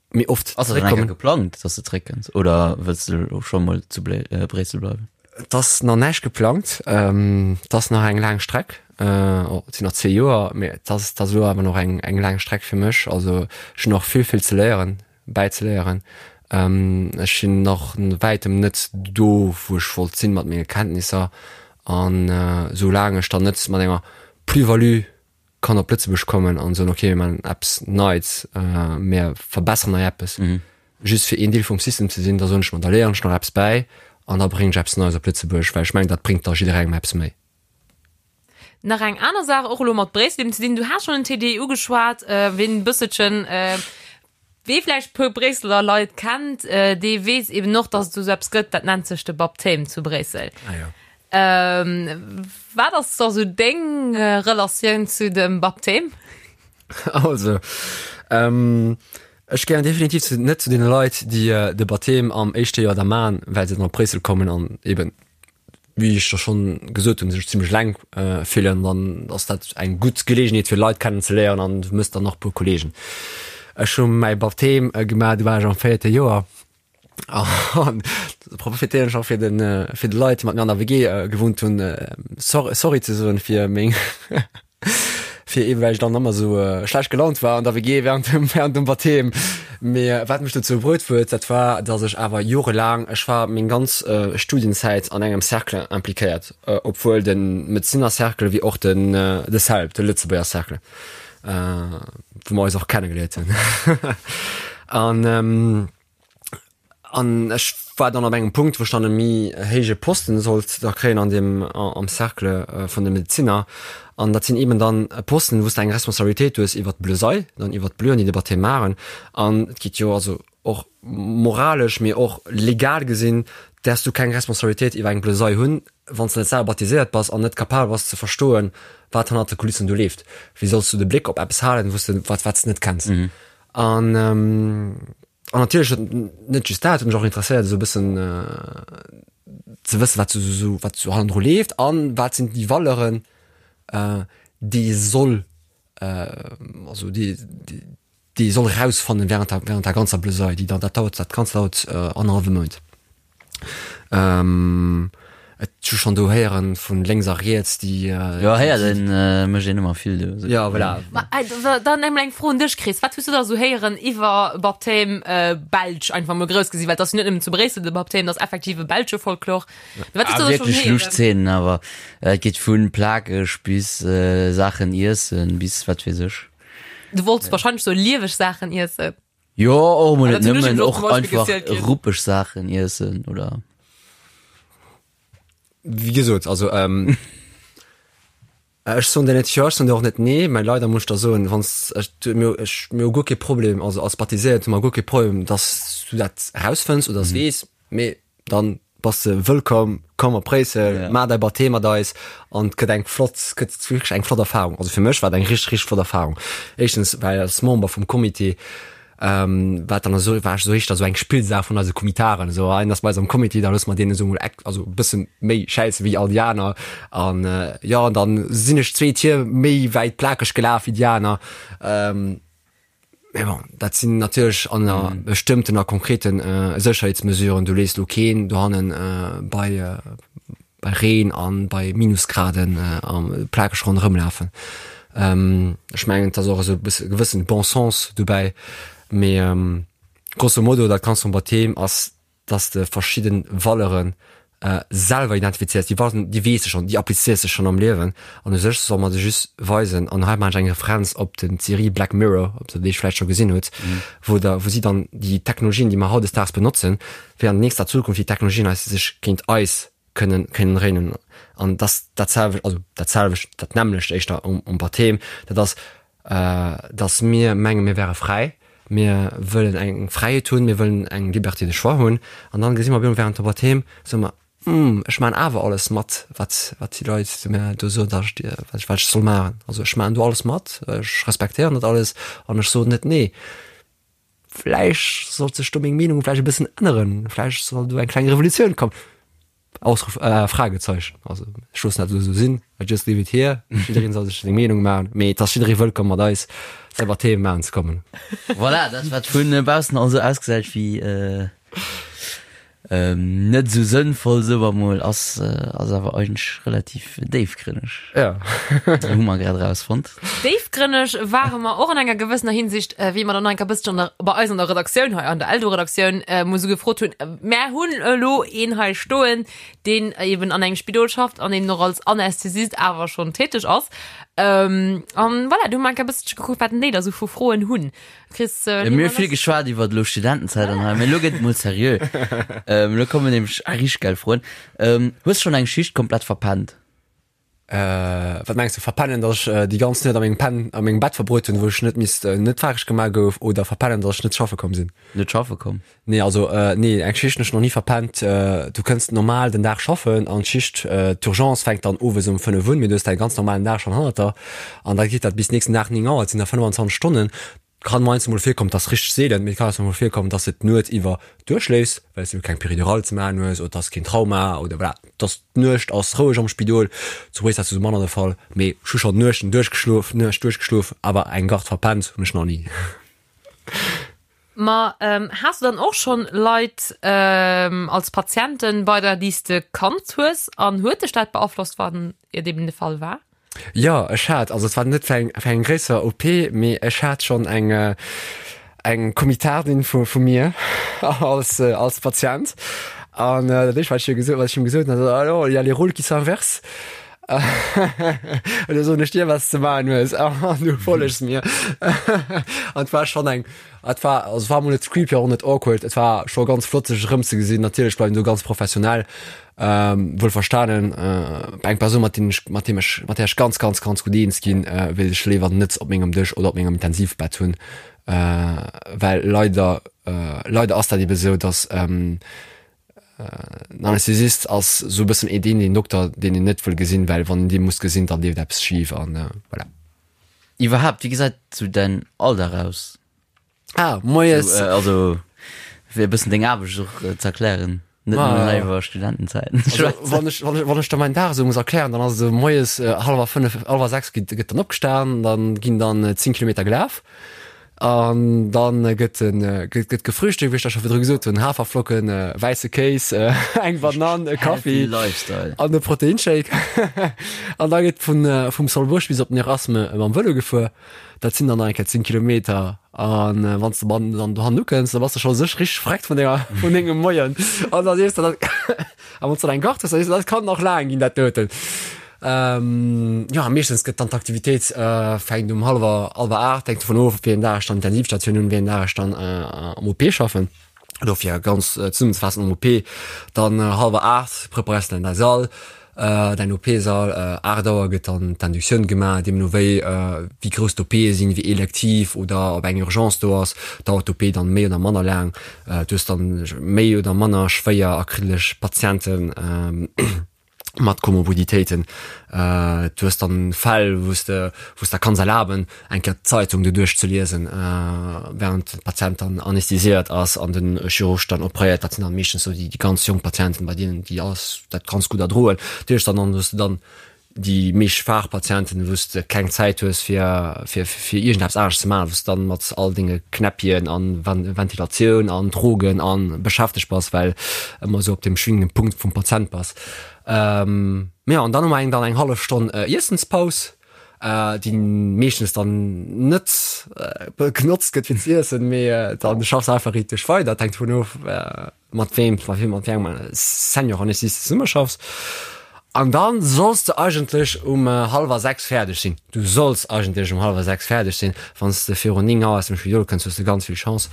méi oft Ass dat dann eng Kéier geplangt, dass de zréckkënns oder wëlls de elo scho mol zu Bréissel bleiwen? Et ass nach näischt geplangt. Et ass nach eng laang Streck. Et sinn nach zwee Joer, mee et ass, et ass elo awer nach eng, eng laang Streck fir mech. Also ech hunn nach vill, vill ze léieren, bäizeléieren. Ech sinn nach wäitem net do, wou ech wollt sinn mat menge Kenntnisser. An soulaang ech dann net mat enger Plus-value kann op Lëtzebuerg kommen an soen, okay, mir maachen eppes Neits, mir verbesseren hei eppes, just fir een Deel vum System ze sinn, da soen ech mer, da léieren ech nach eppes bäi an da bréngen ech eppes Neies op Lëtzebuerg, well ech mengen, dat bréngt da jidderengem eppes méi. Nach eng aner Saach, och elo mat Bréissel eben ze dinn, du has schonn den TDI ugeschwat, ween e bësselchen. Wee vläicht puer Bréisseler Leit kennt, dee weess eben och, dass et esou eppes gëtt, dat nennt sech de Baptême zu Bréissel. Ah jo. Wat ass da sou deng Relatioun zu dem Baptême? Also, ech gehéieren definitiv zu, net zu deene Leit, déi de Baptême am éischte Joer da man, well se dann op Bréissel kommen an eben wéi ech der schonn gesot hunn, sech zimmlech eleng fillen, dann ass dat eng gutt Geleegenheet fir Leit kennen ze léieren an du mëss dann nach e puer Kolleegen. Ech hu mäi Baptême gemaach, du war ech am véierte Joer an do profitéieren ech och fir de fir de Leit, déi mat mir an der WG gewunnt hunn, Sorry ze soen fir meng fir eben well ech dann ëmmer sou schlecht gelaunt war an der WG während dem während dem Baptême. Mee wat mech dozou bruet huet, dat war dass ech awer jorelaang, ech war meng ganz Studienzäit an engem Cercle impliquéiert, obwuel de Medezinercercle wéi och den de CELP, de Lëtzebuerger Cercle, wou mer eis och kennegeléiert hunn an An ech war dann op engem Punkt, wou ech dann e méi héije Posten sollt da kréien an deem, am Cercle vun de Medezinner. An dat sinn eeben dann Posten, wou s de eng Responsabilitéit hues iwwert d'Blesei, dann iwwert d'Bleuen, déi de Baptême maachen. An et geet jo also och moralesch, mee och legal gesinn, däerfs du keng Responsabilitéit iwwer eng Blesei hunn, wann s de net selwer baptiséiert bass an net capabel bass ze verstoen, wat hannert de Kulissen do leeft. Wéi solls du de Bléck op eppes halen, wou s de, wat, wat s de net kenns? An An natierlech huet net just dat, huet mech och interesséiert esou e bëssen ze wëssen, wat esou wat esou hannendru leeft an wat sinn déi Valeuren, déi ee soll also déi déi ee soll erausfannen während der während der ganzer Blesei, déi dann dat dauert dat Ganzt dauert annerhallwe Mount. Et hu schonn do héieren vun lénks a riets, déi. Jo, héieren mécht een ëmmer vill do. Jo, voilà. Ma dann emol eng Fro un dech, Chris. Wat hues du da sou héieren iwwer Baptême belsch, einfach mol grouss gesi, well et ass jo net nëmmen zu Bréissel de Baptême, dat ass effektiv e belsche Folklor. Mee wat hues du da schonn héieren? Wierklech lusch Zeenen, awer et geet vu plakeg bis Saachen iessen bis wat weess ech. Du wollts wahrscheinlech sou lieweg Saachen iessen. Jo, och emol net nëmmen, och einfach ruppeg Saachen iessen oder. Wéi gesot, also ech soen der net jo, ech soen der och net nee, mä leider muss ech der soen, wann s ech mir ech mir hu guer kee Problem, also als Baptiséiert hu mer guer kee Problem, datt s du dat erausfënns oder s weess, mee dann bass de wëllkomm, komm op Bréissel, yeah. maach däi Baptême mat eis an et gëtt eng flott, gëtt wierklech eng flott Erfahrung. Also fir mech war et eng richteg, richteg flott Erfahrung. Éischtens, well als Member vum Comité, ähm, war dann esou, war ech esou éischter esou eng Spillsaach vun eise Comitaren, esou ein ass bei eis am Comité, da loosse mer deen esou mol eck, also e bësse méi schäisse wéi all déi aner an äh, jo, an dann sinn ech zwee Tier méi wäit plakeg gelaf wéi déi aner. Ähm, Mä bon, dat sinn natierlech ënner mm. bestëmmten a konkreten äh, Sécherheetsmesuren. Du lees lo keen dohannen äh, bei, äh, bei Reen an bei Minusgraden äh, am plakeg ronderëm lafen. Ähm, ech mengen, dat ass och esou e bësse gewëssen Bon sens dobäi. Mee ähm, grosso modo, dat Ganzt vum Baptême ass dass de verschidden Valeuren selwer identifizéiers, déi Valeuren, déi weess de schonn, déi applizéiers de schonn am Liewen an u sech soll mer se just weisen an hei maachen ech eng Referenz op den d'Serie Black Mirror, ob der déi vläicht scho gesinn hutt, wou der, wou si dann déi Technologien, déi mer hautdesdaags benotzen, wéi an nächster Zukunft déi Technologien eis sech géint eis kënnen, kënnen dréinen an dass dat selwecht, also dat selwecht, dat nämmlecht éischter um, um Baptême, dat ass dass mir mengen, mir wäre fräi, mir wëllen eng Fräiheet hunn, mir wëllen eng Liberté de choix hunn, an dann gesi mer op eemol während der Baptême, soe mer, Hm, ech maachen awer alles mat, wat, wat déi Leit zu mir do soen, dass ech, wat ech, wat ech soll maachen. Also ech maachen do alles mat, ech respektéieren dat alles an ech soen net nee. Vläicht sollt sech do meng Meenung vläicht e bëssen änneren, vläicht soll do eng kleng Revolutioun kommen. Ausruf äh, Fragezeichen. Also ech loossen dat elo esou sinn, I just leave it here. Jiddereen soll sech seng Meenung maachen, mee et ass jidderee wëllkomm mat eis selwer Themen maachen ze kommen. Voilà, dat wat vun baussen also ausgesäit wéi äh, ähm, net esou sënnvoll, soe mer mol, ass, ass awer eigentlech relativ déifgrënneg. Ja. Hu mer grad erausfonnt. Déifgrënneg ware mer och an enger gewëssener Hinsicht, wéi mer dann nach eng Kéier e bësschen an der, bei eis an der Redaktioun hei, an der Eldo-Redaktioun, mol esou gefrot hunn, Mär hunn elo een hei stoen, deen eben an engem Spidol schafft an eben och als Anästhesist awer schonn täteg ass. An voilà, do hu mer eng Kéier e bësselche gekuckt, wat denn déi da sou vu Froen hunn. Chris, äh, Mir hu vill geschwat iwwer elo Studentenzäit an hei, mee elo gëtt et mol seriö. Elo kommen nämlech richteg geil Froen. Hues schonn eng Schicht komplett verpennt? Wat mengs du, verpennen, datt ech déi ganz Nuet a mengem Pen, a mengem Bett verbruet hunn, wou ech net misst, net faareg gemaach gouf, oder verpennen, datt ech net schaffe komm sinn? Net schaffe komm? Nee, also nee, eng Schicht hunn ech nach ni verpennt. Du kënns normal den Dag schaffen an d'Schicht, d'Urgence fänkt dann owes um 5 un, mee du hues däi ganz normalen Dag schonn hannert der an da geet dat bis nächsten Dag 9 Auer, et sinn da 25 Stonnen. Kann mei mol virkommen, dass richteg seelen, mee et kann mol virkommen, dass de d'Nuet iwwer duerchschléifs, well s du keng Péridurale ze maachen hues oder dass keen Trauma oder voilà, dass d'Nuecht ass roueg am Spidol. Zu Bréissel ass dat esou manner de Fall, mee ech hu schonn Nuechten duerchgeschlof, Nuecht duerchgeschlof, awer eng Garde verpennt hunn ech nach ni. Ma has du dann och schonn Leit als Patienten bei der, déi s de kannt hues an huet dech dat beaflosst, wann et eben de Fall war? Jo, ech hat, also et war net fir eng, fir eng gréisser OP, mee ech hat schonn eng, eng Komitardin vu, vu mir als, als Patient. An dat éischt, wat ech hir gesot, wat ech him gesot hunn, ass, Alors, il y a les rôles qui s'inversent. Elo soen ech dir, wat s de maachen hues, an du follegs mir. An et war schonn eng, et war, also et war emol net creepy, och net awkward, et war scho ganz flott, sech erëmzegesinn. Natierlech bleiwen do ganz professionell. Wuel verstanen, eng Persoun mat deem ech mat deem ech mat där ech ganz ganz ganz gutt eens ginn, wéilt ech léiwer net op mengem Dësch oder op mengem Intensivbett hunn, well leider leider ass dat ebe sou, datt en Anästhesist ass sou e bëssen ee deen een Dokter deen een net wëll gesinn, well wann een dee muss gesinn, dann leeft eppes schif an voilà. Iwwerhaapt, wéi gesäit sou däin Alldag aus? Ah, moies. So, äh, also, fir e bëssen deng Aarbecht och äh, ze erklären. Net ah, nëmmen iwwer Studentenzäiten. Also, wann ech, wann ech, wann ech da meinen Dag esou muss erklären, dann ass et esou moies äh, hallwer fënnef, hallwer sechs gëtt, gëtt dann opgestan, dann ginn dann äh, 10 Kilometer gelaf. An dann äh, gëtt den, äh, gëtt, gëtt gefrühstückt, wéi ech da scho virdru gesot hunn, Haferflocken, äh, wäisse Kéis, äh, eng Banann, e Kaffi Lifestyle. an e Proteinshake. an da gëtt vun, äh, vum Solbuerg bis op den Erasme mam Vëlo gefuer. Dat sinn dann nach eng Kéier 10 Kilometer. An wann s de dann dann dohannen ukënns, da bass de scho sech richteg vreckt vun denger, vun dengem Moien. An da sees de dann, a wann s de dann eng Gart hues, da sees de, dat kann nach laang ginn, dat doten. Jo, meeschtens gëtt dann d'Aktivitéit fänkt um hallwer, hallwer 8, hänkt dovun of, wéi een Dag ech dann Intensivstatioun hunn, wéi een Dag ech dann am OP schaffen. Dofir ganz zesummenzefaassen, am OP dann hallwer 8 preparéiers de dann däi Sall, däin OP-Sall, 8 Auer gëtt dann d'Inductioun gemaach, deemno wéi wéi grouss d'OPe sinn, wéi elektiv oder ob eng Urgence do ass, dauert d'OP dann méi oder manner laang. Du hues dann méi oder manner schwéier a kriddeleg Patienten. Mat Komorbiditéiten. Du hues dann Fäll, wou s de, wou s der kanns erlaben, eng Kéier d'Zeitung doduerch ze liesen, während de Patient dann anästhesiéiert ass an den Chirurg dann opréiert. Dat sinn dann meeschtens sou déi, déi ganz jonk Patienten, bei deenen déi alles dat ganz gutt erdroen. Natierlech dann an hues de dann déi méi schwaach Patienten, wou s de keng Zäit hues fir, fir, fir iergendeppes anescht ze maachen, wou s de dann mat all denge Knäppchen an Ventilatioun an Drogen an beschäftegt bass, well ëmmer esou op dem schwingenden Punkt vum Patient bass. Ähm, jo, an dann hu mer eng dann eng hallef Stonn Iessenspaus, déi meeschtens dann net genotzt gëtt fir z'iessen, mee dann schaffs einfach richteg weider. Et hänkt dovun of, mat weem, mat weem, mat wéi engem Senior-Anästhesist zesummeschaffs. An dann solls de eigentlech um hallwer 6 fäerdeg sinn. Du solls eigentlech um hallwer 6 fäerdeg sinn. Wann s de virun 9 Auer aus dem Spidol kënns, hues de ganz vill Chance.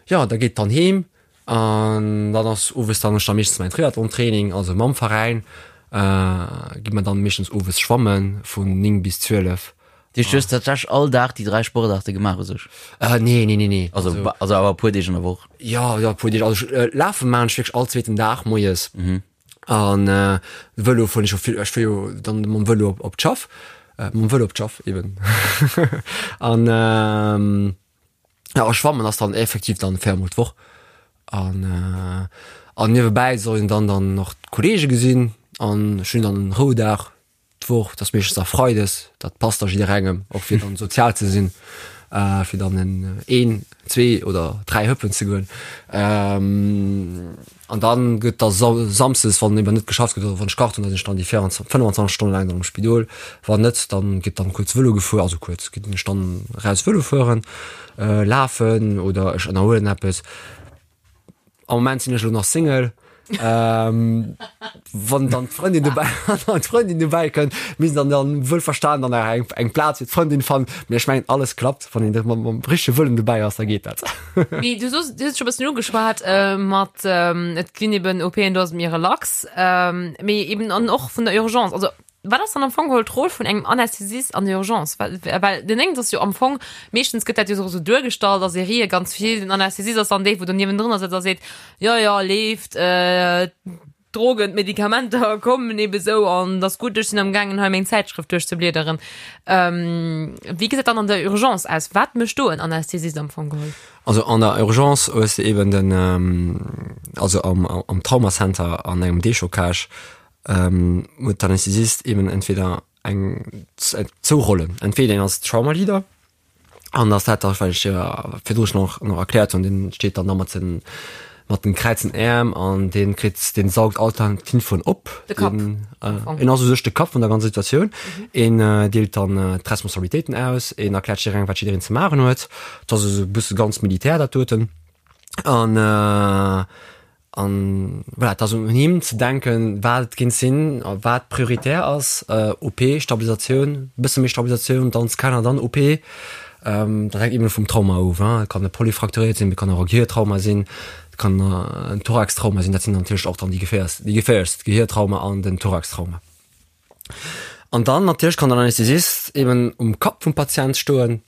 Jo, da geet dann heem an dann ass owes dann ech da meeschtens mäin Triathlon-Training, also mam Veräin gi mer dann meeschtens owes schwammen vun 9 bis 12. Dat heescht, du hues tatsächlech all Dag déi 3 Sportaarte gemaach u sech? Nee, nee, nee, nee. Also, also awer e puer Deeg an der Woch? Jo, jo, e puer Deeg. Also ech lafe maachen ech wierklech all zweeten Dag moies. An Vëlo fueren ech jo vill, ech fuer jo dann mam Vëlo op, op d'Schaff, mam Vëlo op d'Schaff eben. An jo, a schwammen ass dann effektiv dann 4 mol d'Woch. An an niewebäi soll een dann dann nach d'Kollege gesinn an ech hunn dann en Roudag D'Woch, dat ass meeschtens da freides, dat passt da jidderengem, och fir dann sozial ze sinn, fir dann en een, zwee oder dräi Hëppen ze goen. An dann gëtt da samsdes, wann eben net geschafft gëtt oder wann ech kacht hunn, da sinn ech dann déi 24, 25 Stonne laang dann am Spidol. Wann net, dann gëtt dann kuerz Vëlo gefuer, also kuerz, ginn ech dann raus Vëlo fueren, lafen oder ech ënnerhuelen eppes. Am Moment sinn ech elo nach Single. Ähm, wann dann d'Frëndin dobäi an d'Frëndin dobäi kënnt, misst dann dann wuel verstan dann nach eng eng Plaz fir d'Frëndin fannen. Mee ech mengen alles klappt, wann een mam mam richtege Wëllen dobäi ass, da geet dat. Mee du soos, du hues scho bëssen ugeschwat äh, mat ähm, et ginn eben OPen, do ass et méi relax, ähm, mee eben an och vun der Urgence. Also Wat ass dann am Fong geholl d'Roll vun engem Anästhesist an der Urgence? Well, well den Déngens ass jo am Fong, meeschtens gëtt dat jo esou duergestallt a Serië ganz vill, den Anästhesist ass dann dee, wou do niewendrënner sëtzt a seet, jo, jo, leeft, d'Drogen, d'Medikamenter kommen ebe sou an et ass gutt, ech sinn am gaangen hei meng Zäitschrëft duerchzebliederen. Wéi gesäit dann an der Urgence aus? Wat mécht do en Anästhesist am Fong geholl? Also an der Urgence hues de eben den, also am, am Traumacenter an engem Déchocage, huet d'Anästhesist eben entweder eng zwou Rollen, entweder een ass Trauma Leader an ass dat da wat ech virdru schonn och nach erkläert hunn, deen steet dann da mat den mat den kräizen Äerm an dee kritt deen saugt all d'Infoen op. De Kapp. Deen en ass u sech de Kapp vun der ganzer Situatioun. Een deelt dann d'Responsabilitéiten aus, een erkläert jidderengem wat jiddereen ze maachen huet. Dat ass esou e bësse ganz militär dat doten an An voilà, et ass un him ze denken, wat et géint sinn a wat prioritär ass, OP, Stabilisatioun, e bësse méi Stabilisatioun, dann Scanner, dann OP. Dat hänkt eben vum Trauma of, et kann e Polyfrakturéiert sinn, et kann och e Gehirtrauma sinn, et kann en Thoraxtrauma sinn. Dat sinn natierlech och dann déi geféierst, déi geféierlechst, d'Gehirtrauma an den Thoraxtrauma. An dann natierlech kann den Anästhesist eben um Kapp vum Patient stoen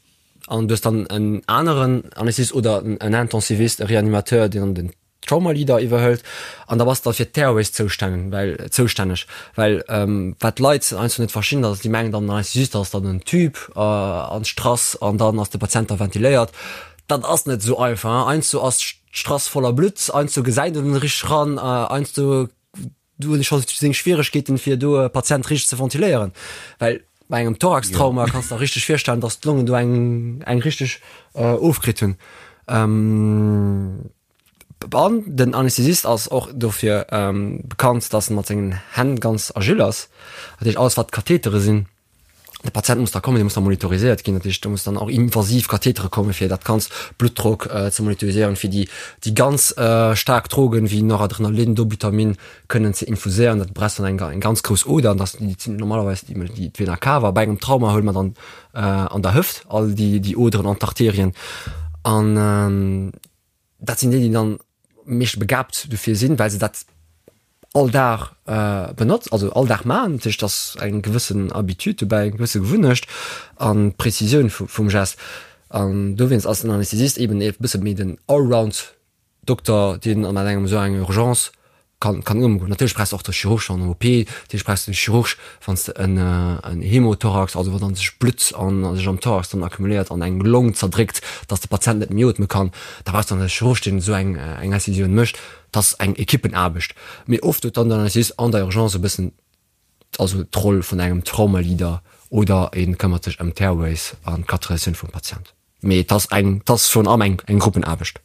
an du hues dann en aneren Anästhesist oder en Intensivist, e Reanimateur, deen dann den Trauma Leader iwwerhëlt an da bass de fir d'Airways zoustänneg, well zoustänneg, well wat d'Leit heiansdo net verstinn, ass déi mengen dann, Anästhesist ass dann en Tube an d'Strass an dann ass de Patient da ventiléiert. Dat ass net esou einfach, heiansdo ass d'Strass voller Blutt, heiansdo gesäit een net richteg eran, heiansdo Do hunn ech scho seng Schwieregkeeten, fir do e Patient richteg ze ventiléieren, well bei engem Thoraxtrauma kanns de der richteg virstellen, dass d'Longen do eng eng richteg ofkritt hunn. An den Anästhesist ass och dofir bekannt, dass en mat sengen Hänn ganz agil ass. Dat heescht, alles wat Kathetere sinn, de Patient muss da kommen, dee muss da monitoriséiert ginn, dat heescht do muss dann och invasiv Kathetere kommen, fir dat ganzt Bluttdrock ze monitoriséieren, fir déi déi ganz staark Drogen wéi Noradrenalin, Dobutamin kënnen ze infuséieren. Dat brauchst dann eng eng ganz grouss Oder an dat déi sinn normalerweis déi déi d'Vena cava. Bei engem Trauma huele mer dann an der Hëft all déi déi Oderen an d'Arterien an dat sinn déi, déi dann meescht begabt dofir sinn, well se dat all Dag benotzt, also all Dag maachen. Dat heescht, et ass eng gewëssen Habitude dobäi, eng gewësse Gewunnecht an d'Prezisioun vum Gest. An dowéinst ass den Anästhesist eben e bësse méi den Allround-Dokter, deen an engem esou enger Urgence kann kann ëmgoen. Natierlech brauchs de och de Chirurg an der OP, natierlech brauchs de de Chirurg, wann s de en en Hemothorax, also wann dann sech Blutt an sech am Thorax dann accumuléiert an eng Long zerdréckt, dass de Patient net méi ootme kann, da brauchs de dann e Chirurg, deen esou eng eng Incisioun mécht. Dat ass eng Ekippenaarbecht. Mee oft huet dann den Anästhesist an der Urgence e bëssen also d'Roll vun engem Traumaleader oder e këmmert sech ëm d'Airways an d'Katheterisatioun vum Patient. Mee et ass eng, et ass virun allem eng eng Gruppenaarbecht.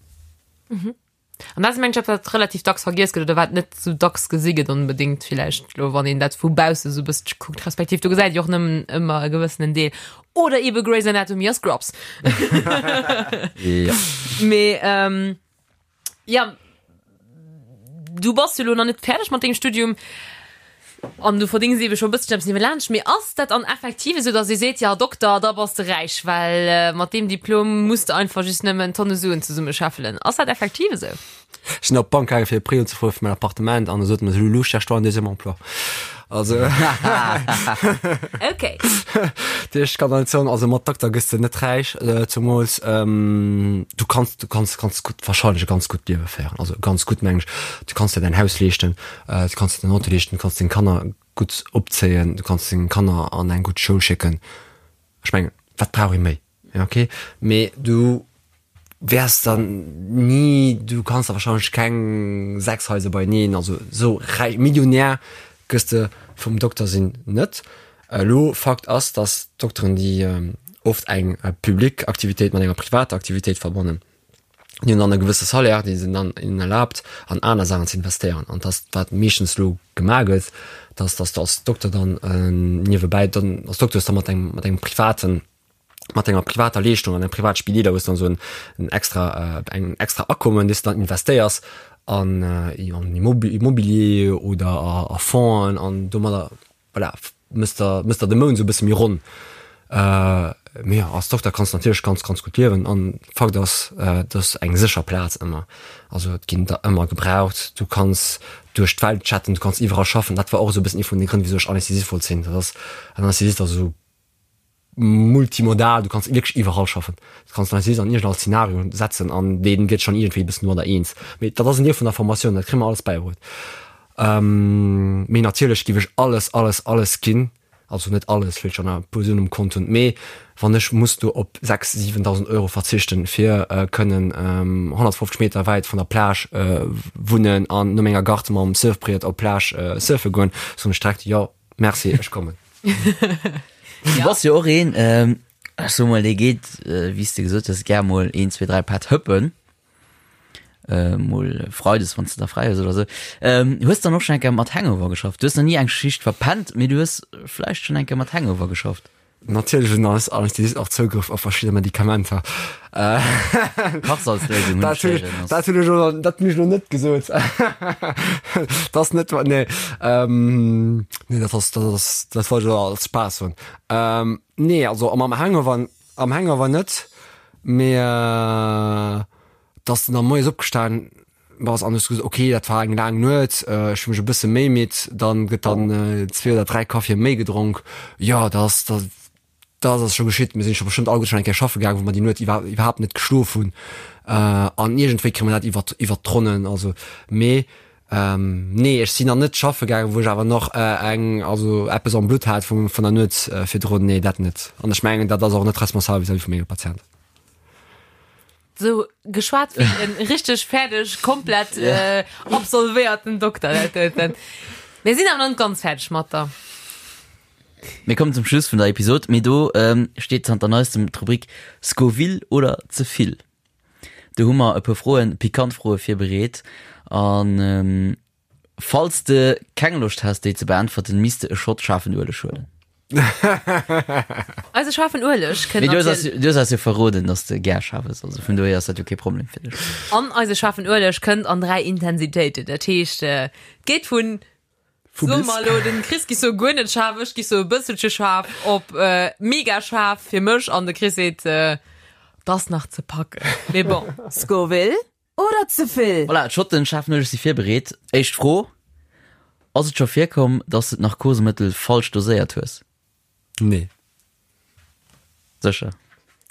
An dat ass mengen ech eppes, wat relativ dacks vergiess gëtt oder wat net sou dacks gesi gëtt onbedéngt villäicht elo, wann een dat vu bausse sou e bësselche kuckt, respektiv do gesäit ee jo och nëmmen ëmmer e gewëssenen Deel. Oder ebe Grey's Anatomy a Scrubs. Ja. Mee ja, du bass jo elo nach net fäerdeg mat dengem Studium. An du verdéngs eebe scho e bësselchen eppes niewelaanscht. Mee ass dat an effektiv esou, datt ee seet, jo Dokter, da bass de räich, well mat deem Diplom muss de einfach just nëmmen Tonne Suen zesummescheffelen? Ass dat effektiv esou? Ech sinn op d'Bank gaangen, fir e Prêt unzefroe fir mäin Appartement an da sot mer se, Lulu, cherche-toi un deuxième emploi. Also Ok. Dat heescht, ech kann der net soen, also mat Dokter gëss de net räich, zemools du kanns, du kanns ganz gutt, wahrscheinlech e ganz gutt Liewe féieren, also ganz gutt mengen ech, du kanns der däin Haus leeschten, Du kanns der den Auto leeschten, du kanns deng Kanner gutt opzéien, du kanns deng Kanner an eng gutt Schoul schécken. Ech mengen, wat brauch ee méi? Ja, okay. Mee du wäers dann ni, du kanns der wahrscheinlech keng 6 Haiser beieneen, also esou räich, Millionär gëss de vum Dokter sinn net. Elo, Fakt ass, dass d'Dokteren, déi oft eng public Aktivitéit mat enger privater Aktivitéit verbannen, Déi hunn dann e gewësse Salaire, dee se dann hinnen erlaabt, an aner Saachen ze investéieren. An dat ass, wat meeschtens elo gemaach gëtt, dass, dass de als Dokter dann niewebäi dann als Dokter hues da mat engem, mat engem privaten, mat enger privater Leeschtung an engem private Spideeler hues dann esou en extra, eng extra Akommen, déi s de dann investéiers. An an Immobilier oder a Fongen an domadder voilà, mëss der, mëss der de Mount esou e bësse méi ronn. Mee jo, als Dokter kanns de natierlech ganz, ganz gutt liewen an Fakt ass, et ass eng sécher Plaz ëmmer. Also et ginn der ëmmer gebraucht, du kanns duerch d'Welt chatten, du kanns iwwerall schaffen. Dat war och esou e bëssen ee vun de Grënn, wisou ech Anästhesist wollt sinn. Dat ass, en Anästhesist ass esou multimodal, du kanns wierklech iwwerall schaffen. Du kanns den Anästhesist an iergendall Szenario setzen an dee gëtt schonn iergendwéi e bëssen domadder eens. Mee dat ass en Deel vun der Formatioun, dat kréie mer alles bäibruet. Mee natierlech giff ech alles, alles, alles ginn, also net alles, well ech schon e puer Suen um Kont hunn, mee wann ech muss do op 6, 7.000 Euro verzichten, fir kënnen 150 Meter wäit vun der Plage wunnen an no menger Gart mam Surfbriet op d'Plage surfe goen, soen ech direkt, jo, merci, ech kommen. Du bass jo och een, ech soe mol, dee geet, wéi s de gesot hues, gär mol een, zwee, dräi Pätt hëppen. Äh, mol Freides, wann s de da fräi hues oder sou. Ähm, hues dann och schon eng Kéier mat Hangover geschafft? Du hues nach ni eng Schicht verpennt, mee du hues vläicht schon eng Kéier mat Hangover geschafft. Natierlech hunn eis Anästhesisten och Zougrëff op verschidde Medikamenter. Äh, Kachsalzléisung hunn dat ech hunn ech, héieren, ass. dat hunn ech elo, dat hunn ech elo net gesot. Dat ass net, nee, ähm, nee, dat ass, dat ass, dat wollt ech elo als Spaass soen. Ähm, nee, also mam Hangover, am Hangover net, mee, äh, dass de da moies opgestan bass an hues gesot, okay, dat war eng laang Nuet, ech hu mech e bësse méi midd, dann gëtt dann zwee oder dräi Kaffie méi gedronk. Jo, dat ass, dat dat ass scho geschitt. Mir sinn scho bestëmmt alleguer schonn eng Kéier schaffe gaangen, wou mer déi Nuet iwwer iwwerhaapt net geschlof hunn. An iergendwéi kréie mer dat iwwer iwwer d'Ronnen. Also, mee nee, ech sinn nach net schaffe gaangen, wou ech awer nach eng, also eppes am Blutt hat vum vun der Nuet virdrun. Nee, dat net. An ech mengen, dat ass och net responsabel vis-à-vis vu menge Patienten. Sou geschwat wéi en richteg fäerdeg, komplett yeah. äh, absolvéierten Dokter. Dat doten. Mir sinn awer nach net ganz fäerdeg mat der. Mir kommen zum Schluss vun der Episod, mee do ähm, steet zanter neistem d'Rubrik Scoville oder ze vill. Do hu mer e puer Froen, pikant Froe virbereet an ähm, Falls de keng Loscht häss déi ze beäntwerten, misst de e Shot schaarfen Ueleg huelen. Eise schaarfen Ueleg kënnt Mee du hues eis, natierlech. du hues eis jo verroden, dass de gär schaarf ëss, also vun dohier ass dat jo kee Problem fir dech. An eise schaarfen Ueleg kënnt an 3 Intensitéiten. Dat heescht, et geet vun, Vu soe bis. mer elo, den Chris gi sou guer net schaarf, ech gi sou e bësselche schaarf, op mega schaarf fir mech an de Chris seet, 't ass nach ze packen. Mee bon. Scoville Oder ze vill? Voilà, d'Schotten schaarfen Ueleg si virbereet. Éischt Fro, Ass et scho virkomm, dass de d'Narkosemëttel falsch doséiert hues? Nee. Sécher?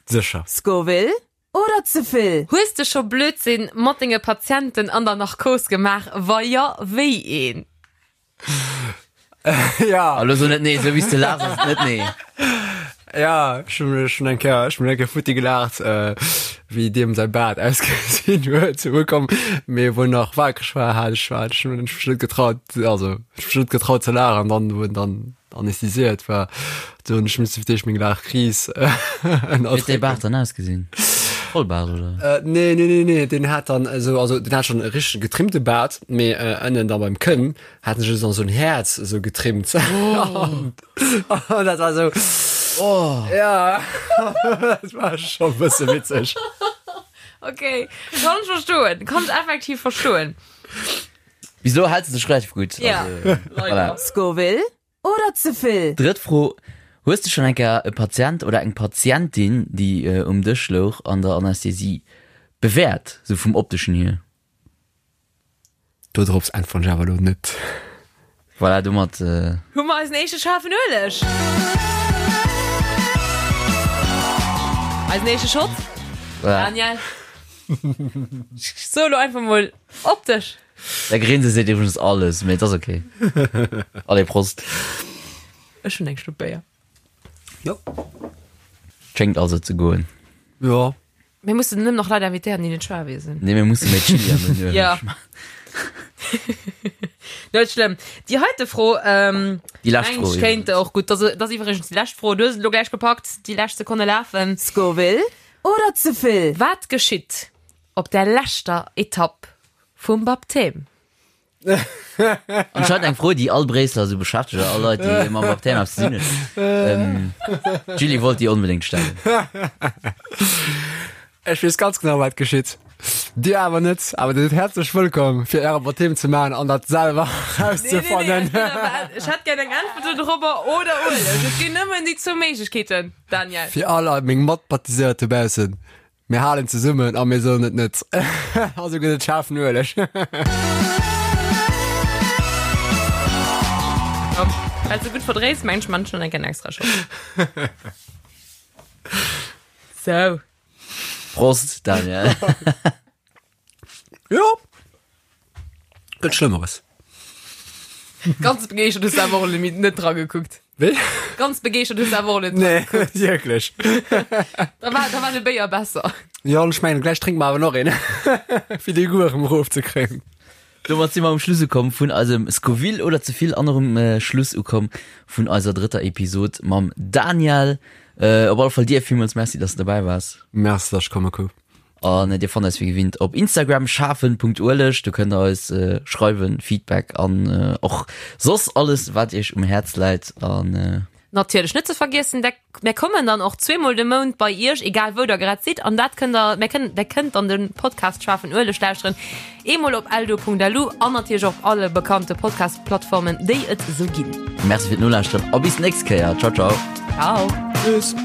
Sécher. Scoville oder ze vill? Hues de scho Blödsinn mat denge Patienten an der Narkos gemaach? Wa jo, wéi een? Ja. Elo so net nee, esou wéi s de laachs ass et net nee. Ja, ech hunn ech hunn eng Kéier, ech hunn eng Kéier futti gelaacht, wéi deem säi Baart ausgesinn huet. Sou komm, mee wou en nach waakreg war, hat ech war ech hunn mech net getraut, also ech mech net getraut ze laachen. An dann, wou en dann anästhesiéiert war, do hunn ech misse fir d'éischt meng Laachkris Wéi huet däi ënnerdrécken. Baart dann ausgesinn? Vollbaart oder? Nee, nee, nee, nee, deen hat dann esou, also deen hat schonn e richtege getrimmte Baart, mee ënnen da beim Kënn hat en sech dann esou en Häerz esou getrimmt. Oh. An dat war esou, Oh. ja, dat war scho e bësse witzeg. Okay, kann ech verstoen, kann ech effektiv verstoen. Bis elo hält se sech relativ gutt. Ja, Also, voilà. leider. Scoville oder ze vill? Drëtt Fro, Hues de schonn eng Kéier e Patient oder eng Patientin, déi um Dësch louch an der Anästhesie, bewäert, sou vum opteschen hier? Do drops äntweren ech awer elo net. Voilà, domat. Hu mer eisen éischte schaarfen Ueleg. Eisen éischte Shot. Voilà. Daniel. Ech soe lo einfach mol op dech. Däi Grinse seet iwwregens alles, mee et ass ok. Allez, Prost. Ech hunn eng Schlupp Béier. Jo. Schéngt also ze goen. Jo. Mir mussen nëmmen nach Leit invitéieren, déi net schwaarwee sinn. Nee, mir musse méi Chili an den Ueleg Ja. maachen. Net schlëmm. Déi heite Fro, ähm, Déi lescht mengen Fro ech, kéint iwwregens. och gutt. Dat ass iwwregens déi lescht Fro. Du hues et elo gläich gepackt. Déi lescht Sekonne lafen. Scoville oder ze vill? Wat geschitt op der leschter Etapp vum Baptême? Anscheinend eng Fro, déi all Bréisseler esou beschäftegt, oder all Leit, déi mam Baptême eppes ze dinn hunn. D'Julie wollt déi onbedéngt stellen. Ech weess ganz genau, wat geschitt. Dir awer net, awer Dir sidd häerzlech wëllkomm fir Äre Baptême ze maachen an dat selwer rauszefannen. Nee, nee, nee, ech hätt gär eng Äntwert dorobber oder Ueleg. Et ginn nëmmen déi zwou Méiglechkeeten, Daniel. Fir all meng Matbaptiséiert dobaussen, Mir halen zesummen a mir soen et net. Also gëtt et schaarfen Ueleg. Well se gutt verdréis, mengen ech, man ech schon eng extra Shot. Sou. Prost, Daniel. Jo. Gëtt Schlëmmeres. Ganz begeeschtert hues du awer och limit net dra gekuckt. Wéi? Ganz begeeschtert hues du awer och net dra Nee, net wierklech. Da war, da war de Béier besser. Jo, an ech mengen, gläich drénke mer awer nach een, fir dee Goût erëm erofzekréien. Domat si mer um Schluss ukomm vun eisem Scoville oder ze vill an och um Schluss ukomm vun eiser drëtter Episod mam Daniel. Op alle Fall dir villmools Merci, dass de dobäi waars. Merci, dass ech komme kouf. An dir fannt eis wéi gewinnt op Instagram schafen.ueleg. Do kënnt der eis schreiwen, Feedback an och soss alles wat iech um Häerz läit. An. Natierlech net ze vergiessen, der mär kommen dann och zweemol de Mount bei iech, egal wou der grad sidd. An dat kënnt der, mär kënnen, der kënnt dann de Podcast Schafen Ueleg lauschteren, eemol op eldo.lu an natierlech och op alle bekannte Podcast-Plattformen, déi et esou ginn. Merci fir d'Nolauschteren a bis d'nächst Kéier. Ciao, ciao. Ciao. Tschüss.